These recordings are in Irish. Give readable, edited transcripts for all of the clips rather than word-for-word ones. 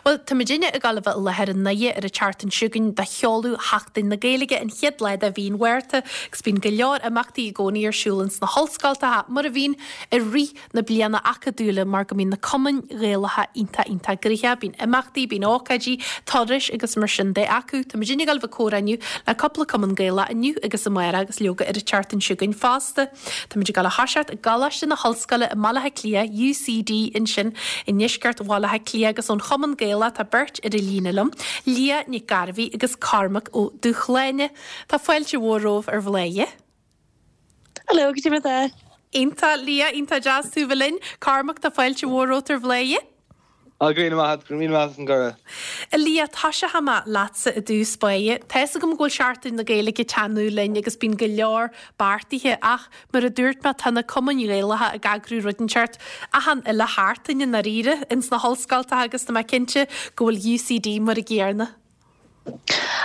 Bhuel, tá muidinne ag dul a bheith i láthair i nDoire ar an tseachtain seo chugainn do sheoladh Sheachtain na Gaeilge, an chéad lá de mhí an Mhárta, agus bíonn go leor imeachtaí i gcónaí ar siúl ins na hollscoltacha, mar a bhíonn i rith na bliana acadúla mar go mbíonn na cumainn Ghaelacha iontach iontach gnoitheach, bíonn imeachtaí, bíonn ócáidí, turais agus mar sin de acu. Tá muidinne ag dul a bheith ag comhrá inniu le cúpla cumann Gaelach inniu agus amárach agus leoga ar an tseachtain seo chugainn fosta. Tá muid ag dul a thoiseacht i gColáiste na hOllscoile i mBaile Átha Cliath, UCD, ansin i ndeisceart Bhaile Átha Cliath agus ón Chumann Gaelach tá beirt ar an líne liom, Liadh Nic Gairbhí agus Cormac Ó Dúshláine. Tá fáilte mhór romhaibh ar Bhladhaire. Hello, goidé mar atá? Iontach, Liadh, iontach deas tú bheith linn. Cormac, tá fáilte mhór romhat ar Bhladhaire. Á, go raibh míle maith agat, go raibh míle maith as an gcuireadh. A Liadh, toiseochaidh mé leatsa i dtús báire. Tá fhios agam go bhfuil Seachtain na Gaeilge ag teannadh linn agus bíonn go leor beartaithe ach mar a dúirt mé tá na cumainn Ghaelacha ag eagrú rud inteacht achan uile sheachtain i ndáiríre ins na hollscoltacha agus tá mé cinnte go bhfuil UCD mar an gcéanna.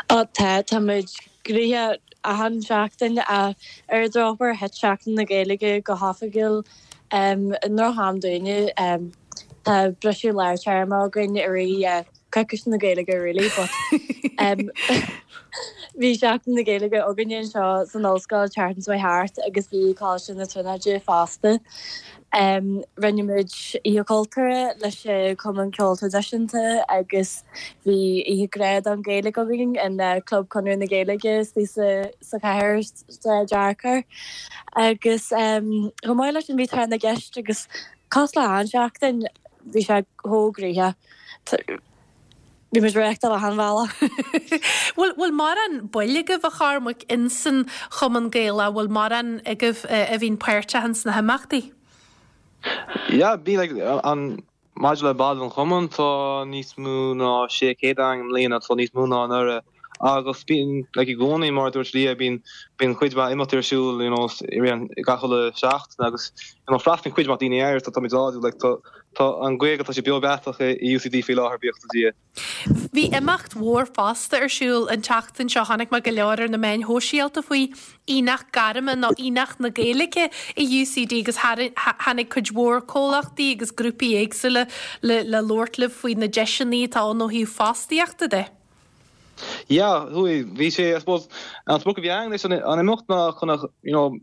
Á tá, tá muid gnoitheach achan seachtain ach ar an drochuair thit Seachtain na Gaeilge go hoifigiúil i ndroch-am dúinne. Tá briseadh lár téarma againn i rith coicís na Gaeilge really but bhí Seachtain na Gaeilge againne anseo san ollscoil tseachtain seo thart agus bhí Coláiste na Tríonóide fosta. Rinne muid Oíche Chultúrtha leis an Chumann Ceoil Traidisiúnta agus bhí Oíche Grá don Ghaeilge againn in Club Conradh na Gaeilge istigh sa chathair sa Fhearchair. Agus chomh maith leis sin bhí Tráth na gCeist agus cosúil le achan seachtain bhí sé chomh gnoitheach. Bhí muid ag reáchtáil achan bhealach. Bhfuil bhfuil mórán baill agaibh a Chormaic insan Chumann Gaelach, bhfuil mórán agaibh a bhíonn páirteach ins na himeachtaí? Yeah, bíonn like an maidir le baill an chumainn tá níos mó ná 600 againn i mbliana, tá níos mó ná anuraidh agus bíonn like i gcónaí mar a dúirt Liadh bíonn bíonn cuid mhaith imeachtaí ar siúl you know i rith an gach uile seachtain agus you know freastalaíonn cuid mhaith daoine air so táimid láidir like tá Tá an Ghaeilge, tá sé beo beathach i UCD faoi láthair, buíochas le Dia. Bhí imeacht mhór fosta ar siúl an tseachtain seo, chonaic mé go leor ar na meáin shóisialta faoi, Aonach Gairme nó Aonach na Gaeilge i UCD agus tháinig cuid mhór comhlachtaí agus grúpaí éagsúla le labhairt libh faoi na deiseanna atá ann ó thaobh fostaíochta de. Yeah, chuaigh, bhí sé, I suppose, an sprioc a bhí againn leis an imeacht ná chun a, you know,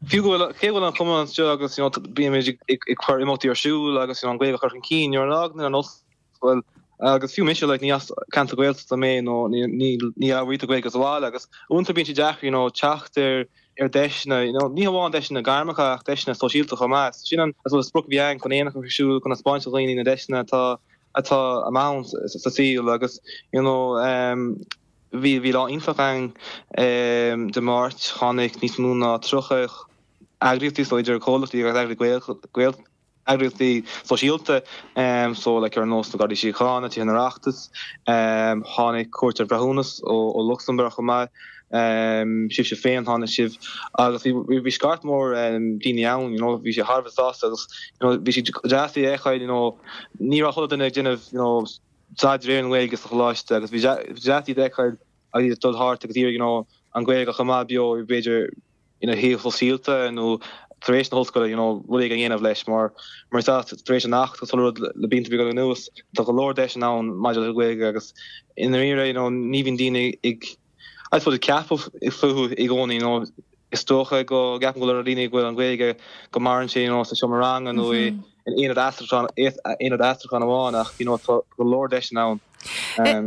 fiú go bhfuil, cé go bhfuil an cumann anseo agus, you know, bímid ag, ag cur imeachtaí ar siúl agus, you know, an Ghaeilge a chur chun cinn, nuair a fhágann an ollscoil agus fiú mise, like, ní as ceantar Gaeltachta mé nó ní, ní, ní labhraítear Gaeilge sa bhaile agus uaireanta bíonn sé deacair, you know, teacht ar, ar deiseanna, you know, ní hamháin deiseanna gairmeacha ach deiseanna sóisialta chomh maith. Sin an, I suppose, sprioc a bhí againn chun aonach a chur ar siúl, chun a spáint do dhaoine na deiseanna atá atá ann sa saol agus you know bhí bhí lá iontach againn Dé Máirt, tháinig níos mó ná 30 eagraíochtaí so idir comhlachtaí agus eagraíochtaí eagraíochtaí sóisialta so like ar nós na Gardaí Síochána, Tithe an Oireachtais, tháinig Cúirt an Bhreithiúnas ó Lucsamburg chomh maith. Sibhse féin, tháinig sibh agus bhí bhí scairt mhór daoine ann, you know, bhí sé thar a bheith sásta agus you know bhí sé deas é a fheiceáil, you know, ní raibh chuile duine ag déanamh you know staidéar ar an nGaeilge sa choláiste agus bhí deas iad a fheiceáil agus iad ag dul thart agus iarraidh you know an Ghaeilge a choimeád beo b'fhéidir ina shaol sóisialta nó tar éis na hollscoile you know rud éigin a dhéanamh leis mar mar is ea tar éis an Acht agus chuile rud le blianta beaga anuas tá go leor deiseanna ann maidir le Gaeilge agus i ndáiríre you know ní bhíonn daoine ag I suppose ag ceapadh fúthu i gcónaí you know is dócha go gceapann go leor daoine go bhfuil an Ghaeilge go maireann sé you know sa seomra ranga nó i in aonad aistriúcháin aonad aistriúcháin amháin ach you know tá go leor deiseanna ann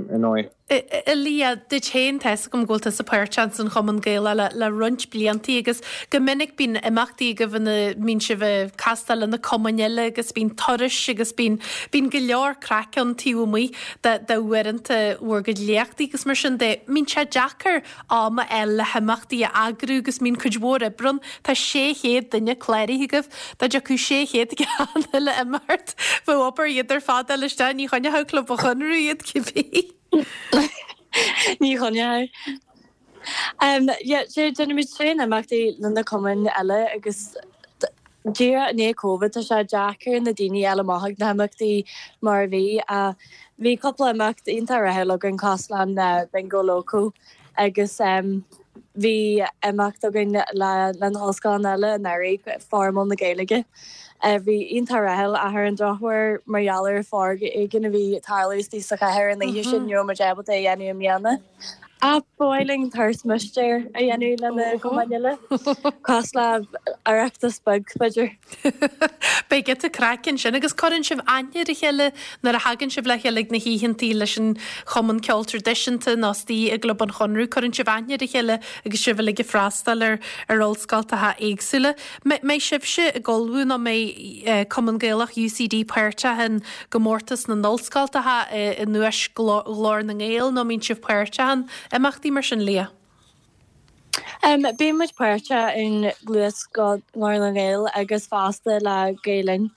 ar ndóigh. A Liadh, duit féin, tá 'fhios agam go bhfuil tusa páirteach san Chumann Gaelach le roinnt bliantaí agus go minic bíonn imeachtaí agaibh ina mbíonn sibh ag castáil le na cumainn eile agus bíonn turais agus bíonn bíonn go leor craic ann taobh amuigh de de uaireanta bhur gcuid léachtaí agus mar sin de. Mbíonn sé deacair am a fháil le himeachtaí a eagrú agus mbíonn cuid mhór oibre ann. Tá 600 duine cláraithe agaibh. Dá dtiocfadh 600 ag an uile imeacht, bheadh obair iad ar fad a fháil isteach, ní choinneochadh Club an Chonradh iad cibé. Ní choinneochadh. Yeah, déanaimid tréan imeachtaí le na cumainn eile agus díreach i ndiaidh Covid tá sé deacair na daoine a fháil amach ag na himeachtaí mar a bhí. Bhí cúpla imeacht iontach rathúil againn cosúil le Bingo Loco agus. Bhí imeacht againn le na hollscoileanna eile anuraidh, Fóram na Gaeilge. Bhí iontach rathúil ach ar an drochuair mar gheall ar foréigean a bhí ag tarlú istigh sa chathair an oíche sin ní raibh muid ábalta é a dhéanamh i mbliana. Ach ba mhaith linn turas mistéir a dhéanamh le na cumainn eile, cosúil le Oireachtas beag b'fhéidir. Beidh giota craic ansin agus cuireann sibh aithne ar a chéile nuair a thagann sibh le chéile ag na hoícheantaí leis an Chumann Ceoil Traidisiúnta nó istigh i gClub an Chonradh. Cuireann sibh aithne ar a chéile agus sibh uilig ag freastal ar ar ollscoltacha éagsúla. Mbeidh sibhse ag ullmhú nó mbeidh Cumann Gaelach UCD páirteach in gcomórtas na n-ollscoltacha i nDuais Ghlór na nGael nó mbíonn sibh páirteach in imeachtaí mar sin, Liadh? Bíonn muid páirteach in Gluais Ghlór na nGael agus fosta le Gael Linn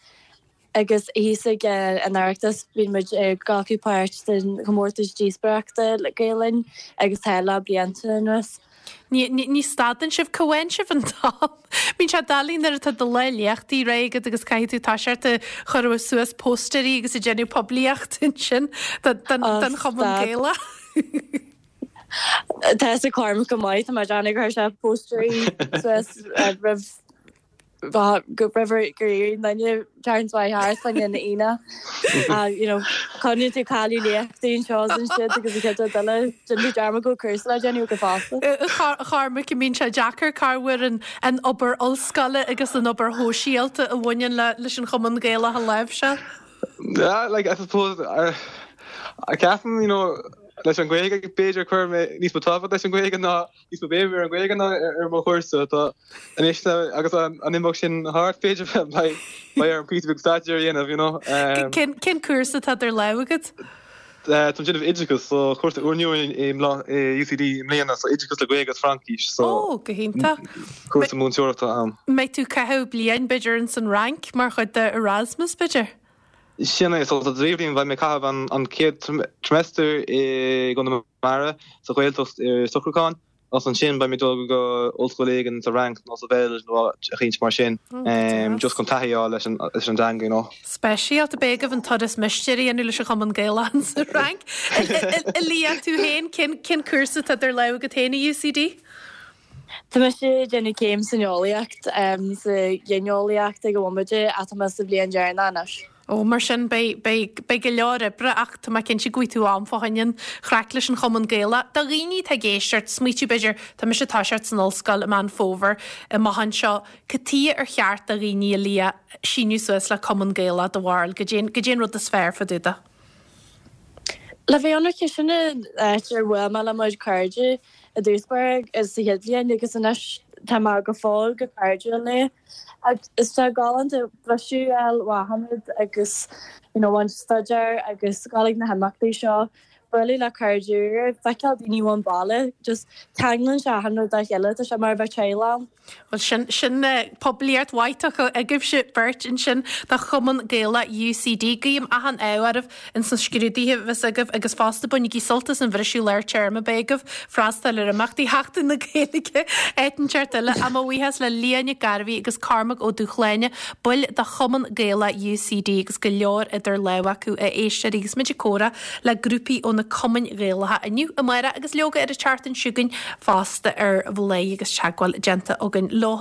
agus thíos ag an Oireachtas bíonn muid ag glacadh páirt den chomórtas díospóireachta le Gael Linn agus tá le blianta anuas. Ní stadann sibh, cá bhfaigheann sibh an t-am? Bíonn sé doiligh nuair atá do lá léachtaí réidh agat agus caithfidh tú toiseacht ag cur suas póstaerí agus ag déanamh poiblíocht ansin don Chumann Gaelach. Tá fhios ag Cormac go maith, tá mé ag déanamh gur chuir sé póstaerí suas roimh go roimh gur éirigh an duine tseachtain seo thart fá choinne an Aoine. You know, coinníonn tú cailleadh léachtaí anseo is ansiúd agus an chéad rud eile, déanann tú dearmad go bhfuil cúrsa le déanamh agat fosta. A Chormaic, an mbíonn sé deacair cá bhfuair an an obair ollscoile agus an obair shóisialta a bhaineann leis an Chumann Gaelach a láimhseáil? Yeah, like, I suppose, I ceapaim, you know, leis an Ghaeilge, b'fhéidir chuir mé níos mó tábhacht leis an Ghaeilge ná níos mó béim ar an Ghaeilge ná ar mo chúrsa. Tá anois agus an imeacht sin thart, b'fhéidir beidh beidh orm píosa beag staidéir a dhéanamh, you know. Cén cén cúrsa atá idir lámha agat? Táim ag déanamh oideachas, so cúrsa úrnua i UCD i mbliana, so oideachas le Gaeilge agus Fraincis, so Ó, go hiontach. cúrsa múinteoireachta ann. Mbeidh tú ag caitheamh bliain b'fhéidir ins an Fhrainc mar chuid de Erasmus b'fhéidir? Sin é, so sa bhliain beidh mé ag caitheamh an chéad trimester i gConamara sa Ghaeltacht ar socrúchán agus ansin beidh mé ag dul go ollscoil éigin sa Fhrainc nó sa Bheilg nó áit eicínt mar sin just chun taithí a fháil leis an dteanga, you know. Speisialta, beidh agaibh an turas mistéir a dhéanamh leis an Chumann Gaelach sa Fhrainc. A Liadh, tú féin, cén cúrsa atá idir lámha agat féin i UCD? Tá mise ag déanamh céim san eolaíocht, sa ghineolaíocht ag an bhomaite ach tá mé sa bhliain deireanach anois. Ó, mar sin, beidh, beidh, beidh go leor oibre ach tá mé cinnte go bhfaighidh tú am fá choinne an chraic leis an Chumann Gaelach. Do dhaoine atá ag éisteacht, smaoitiú b'fhéidir, tá mise ag toiseacht san ollscoil i Meán Fómhair amach anseo, cad tuighe ar cheart do dhaoine, a Liadh, síniú suas le Cumann Gaelach, do bharúil, goidé, goidé an rud is fearr fá dtaobh de? Le bheith ionraic, sin an áit ar bhuail mé le mo chuid cairde i dtús báire sa chéad bhliain agus anois tá mé go fóill go cairdiúil leo. Agus tá galánta briseadh a fháil ó achan rud agus you know ón staidéar agus dul ag na himeachtaí seo, bualadh le cairde úra, feiceáil daoine ón baile, just ceanglann sé achan rud dá chéile, tá sé mar a bheith teaghlach ann. Bhuel, sin, sin poiblíocht mhaith tugtha agaibhse beirt ansin do Chumann Gaelach UCD. Guím achan ádh oraibh ins na scrúduithe a bheas agaibh agus fosta bainigí sult as an bhriseadh lár téarma a bheidh agaibh, freastal ar imeachtaí Sheachtain na Gaeilge, áit inteacht eile. Ach mo bhuíochas le Liadh Nic Gairbhí agus Cormac Ó Dúshláine, baill de Chumann Gaelach UCD agus go leor idir lámha acu, a éisteoirí, agus muid ag comhrá le grúpaí ó na cumainn Ghaelacha inniu, amárach agus leoga ar an tseachtain seo chugainn fosta ar Bhladhaire agus teagmháil déanta againn leo.